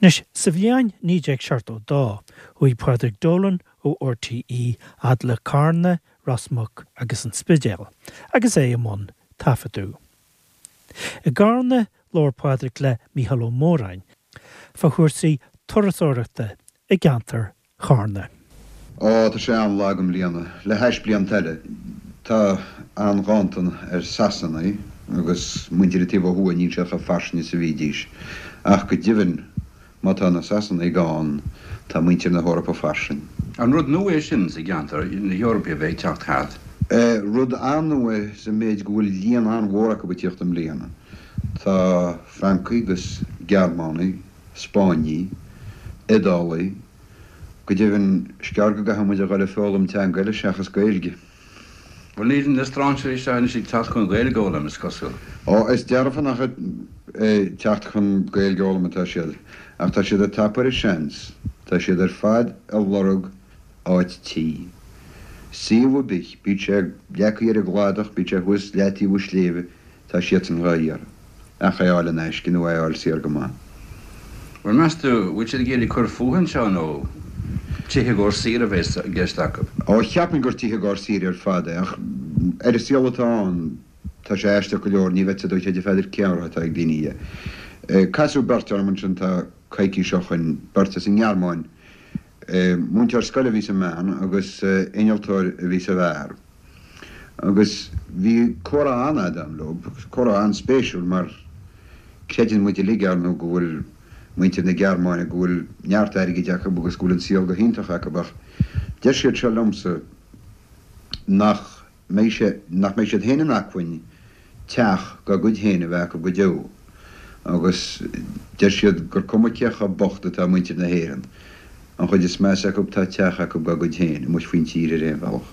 Anois, sa bhliain 1972, chuaigh Pádraig Dolan ó RTÉ fhad le Carna, Ros Muc agus an Spidéal agus é i mbun taifeadadh. I gCarna, labhair Pádraig le Mícheál Ó Móráin fá chúrsaí turasóireachta i gceantar Charna. Ó, tá sé an-lag i mbliana, le hais blianta eile. Tá an-ghanntan ar Sasanaigh agus muintir an taobh ó thuaidh, níl siad chomh fairsing is a bhídís. Ach go deimhin, má tá na Sasanaigh gann, tá muintir na hEorpa fairsing. An rud nua é sin sa gceantar, na hEorpaigh a bheith ag teacht thart? Rud an-nua é sa méid go bhfuil líon an-mhór acu ag tíocht i mbliana. Tá Francaigh agus Gearmánaigh, Spáinnigh, Iodálaigh, go deimhin, is gearr go gcaithfidh muid a dhul ag foghlaim teanga eile seachas Gaeilge. Bhuel, níl na strainséirí seo anois ag teacht chun Gaeilge a fhoghlaim, is cosúil. Ó, is dearfa nach ag teacht chun Gaeilge a fhoghlaim atá siad, ach tá siad ag tapú ar an seans. Tá siad ar fad ag lorg áit tí. Suíomh ar bith, bíodh sé leagtha ar an gcladach, bíodh sé thuas leataobh an sléibhe, Tá siadsan dhá iarraidh. Ach é a fháil in aisce nó é a fháil saor go maith. Bhuel, meas tú, bhfuil siad ag iarraidh cur fúthu anseo nó tithe i gcomhair saoire a bheas i gceist acu? Ó, cheapfainn gur tithe i gcomhair saoire ar fad é, ach ar an saol atá ann, tá sé aisteach go leor, ní bheadh a fhios agat a Pheadair cén rogha atá ag daoine. Casadh beirt orm ansin tá coicís ó shoin, beirt as an nGearmáin. Múinteoir scoile a bhí sa mbean agus innealtóir a bhí sa bhfear. Agus bhí comhrá an-fhada agam leo, comhrá an-spéisiúil mar creideann muid uilig, ar ndóigh, go bhfuil muintir na Gearmáine, go bhfuil neart airgid acu agus go bhfuil an saol go hiontach acu ach deir siad seo liomsa nach mbeidh sé, nach mbeidh siad féin in acmhainn teach dá gcuid féin a bheith acu go deo agus deir siad gur cuma cé chomh bocht atá muintir na hÉireann, an chuid is measa acu tá teach acu dá gcuid féin amuigh faoin tír ar aon bhealach.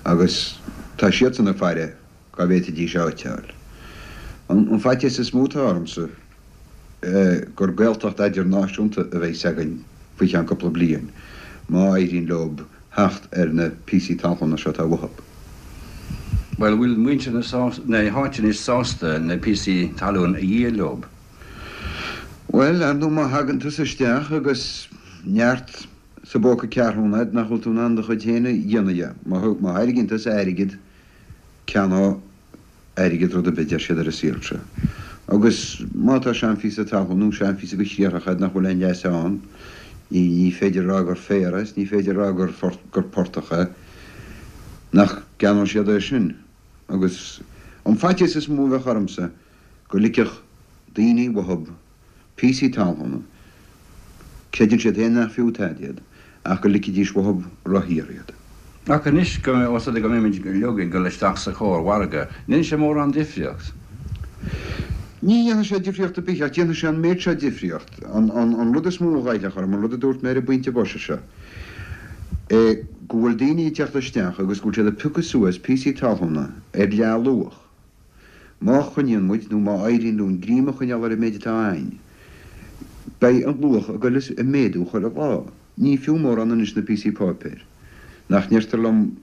Agus tá siadsan ag faire cá bhféadfaidís áit a fháil. An faitíos is mó atá ormsa gur Gaeltacht eidirnáisiúnta a bheas againn faoi cheann cúpla bliain má éiríonn leob theacht ar na píosaí talún seo atá uathub. Bhuel, bhfuil muintir na háite anois sásta na píosaí talún a dhíol leob? Bhuel, ar ndóigh má thagann tusa isteach agus neart sa bpóca ceathrúna agat nach bhfuil tú in ann do chuid féin a dhéanamh dhe. Má thairgíonn tusa airgead, ceannóidh airgead rud ar bith, deir siad ar an saol seo. Agus má tá seanphíosa talún nó seanphíosa de chriathrach agat nach bhfuil aon leas ann, ní féidir a rá gur féar é is ní féidir a rá gur gur portach é, nach gceannóidh siad é sin? Agus an faitíos is mó a bheadh ormsa go ligfeadh daoine uathub píosaí talún, creideann siad féin nach fiú tada iad, ach go ligfidís uathub ródhaor iad. Ach anois, ós rud é go mbeimid uilig ag dul isteach sa chór-mhargadh, an ndéanfaidh sé mórán difríocht? Ní dhéanfaidh sé difríocht ar bith, ach déanfaidh sé an méid seo difríocht. An rud is mó a ghoillfeadh orm, an rud a dúirt mé ar an bpointe boise seo, é go bhfuil daoine ag teacht isteach agus go bhfuil siad ag piocadh suas píosaí talúna ar leath-luach. Má choinníonn muid, nó má éiríonn linn greim a choinneáil ar an méid atá againn, beidh an luach ag goil ag méadú chuile lá. Ní fiú mórán anois na píosaí páipéir. Nach ndeirtear liom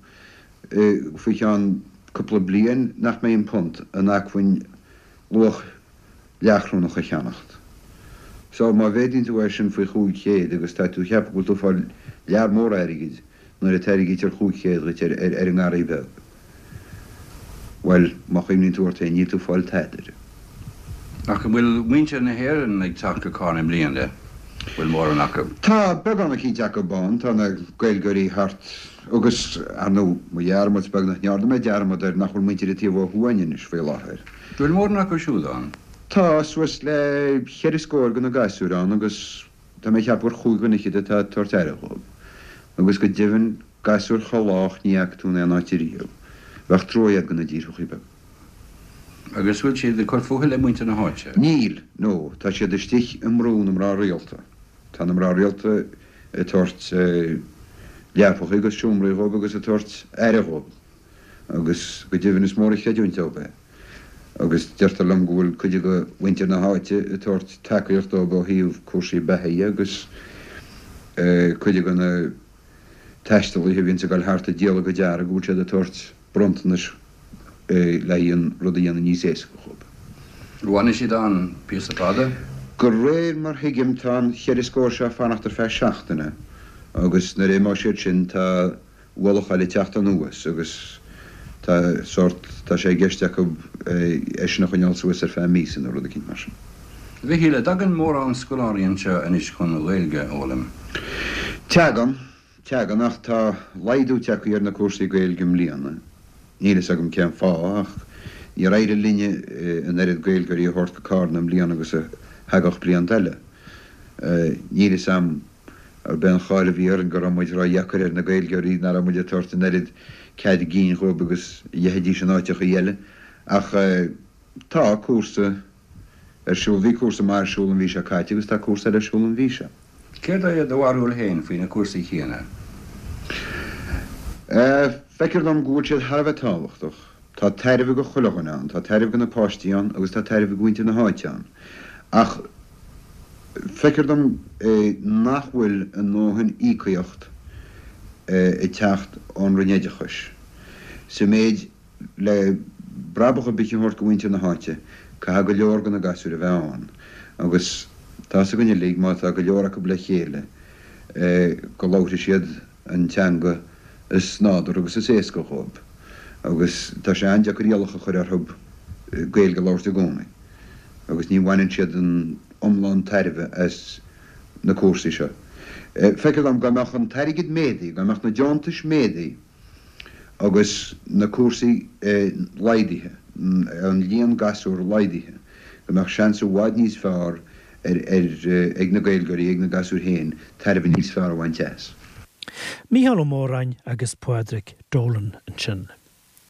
faoi cheann cúpla bliain nach mbeidh an punt in acmhainn luach leathchrónach a cheannacht. So, má mhéadaíonn tú é sin faoi 500 agus tá tú ag ceapadh go bhfuil tú ag fáil lear mór airgid, Nuair a tairgítear 500 dhuit ar an ngarraí beag, bhuel, má chuimhníonn tú ort féin, níl tú ag fáil tada air. Ach an bhfuil muintir na hÉireann ag teacht go Carna i mbliana? Bhfuil mórán acu? Tá beagán eicínt acu ann. Tá na Gaeilgeoirí thart agus, ar ndóigh, mo dhearmad, is beag nach ndearna mé dearmad air, nach bhfuil muintir an taobh ó thuaidh againn anois faoi láthair. Bhfuil mórán acu siúd ann? Tá suas le cheithre scór de na gasúir ann agus Tá mé ag ceapadh gur chúig dhuine fhichead atá ag tabhairt aire dhóibh. Agus go deimhin, gasúir chomh lách ní fhaca tú in aon áit ariamh. Bheadh trua agat do na díorthachaí beaga. Agus bhfuil siad ag cur fúthu le muintir na háite? Níl, no, tá siad istigh i mbrú na mná rialta. Tá na mná rialta ag tabhairt leapacha agus seomraí dhóibh agus ag tabhairt aire dhóibh. Agus go deimhin is mór an chreidiúint dóibh é. Agus deirtear liom go bhfuil cuid de mhuintir na háite ag tabhairt tacaíocht dóibh ó thaobh cúrsaí beatha dhe agus cuid de na taistealaithe a bhíonns ag dul thart ag díol a gcuid earraí go bhfuil siad ag tabhairt bronntanais le haghaidh an rud a dhéanamh níos éasca dhóibh. An bhfanfaidh siad ann píosa fada? De réir mar thuigim tá an cheithre scór seo ag fanacht ar feadh seachtaine agus nuair a imeoidh siad sin tá ualach eile ag teacht anuas agus tá sórt, tá sé i gceist acu é sin a choinneáil suas ar feadh míosa nó rud eicínt mar sin. A Mhichíl, an dtagann mórán scoláirí anseo anois chun an Ghaeilge a fhoghlaim? Tagann, tagann ach tá laghdú tagtha ar na cúrsaí Gaeilge i mbliana. Níl fhios agam cén fáth ach níor éirigh linne an oiread Gaeilgeoirí a thabhairt go Cárna i mbliana agus a thagadh blianta eile. Níl fhios a'm arb é an cháil a bhí orainn go raibh muid ródheacair ar na Gaeilgeoirí, nach raibh muid ag tabhairt an oiread cead gcinn dhóibh agus a gheibhidís in áiteachaí eile. Ach tá cúrsa ar siúl, bhí cúrsa maith ar siúl an mhí seo caite agus tá cúrsa eile ar siúl an mhí seo. Céard é do bharúil féin faoi na cúrsaí céanna? Feictear dom go bhfuil siad thar a bheith tábhachtach. Tá tairbhe go chuile dhuine ann, tá tairbhe go na páistí ann agus tá tairbhe go mhuintir na háite ann. Ach feictear dom nach bhfuil a ndóthain íocaíocht ag teacht ón Roinn Oideachais. Sa méid le brabach ar bith a thabhairt go mhuintir na háite, caithfidh go leor de na gasúir a bheith ann. Agus tá 'fhios againn uilig, má tá go leor acu le chéile, go labharfaidh siad an teanga is nádúrtha agus is éasca dhóibh. Agus tá sé an-deacair iallach a chur orthu Gaeilge a labhairt i gcónaí. Agus ní bhaineann siad an iomlán tairbhe as na cúrsaí seo. Feictear dom dá mbeadh an t-airgead méadaithe, dá mbeadh na deontais méadaithe agus na cúrsaí laghdaithe, an líon gasúr laghdaithe, go mbeadh seans i bhfad níos fearr ag na Gaeilgeoirí, ag na gasúir féin, tairbhe níos fearr a bhaint as. Mícheál Ó Móráin agus Pádraig Dolan ansin.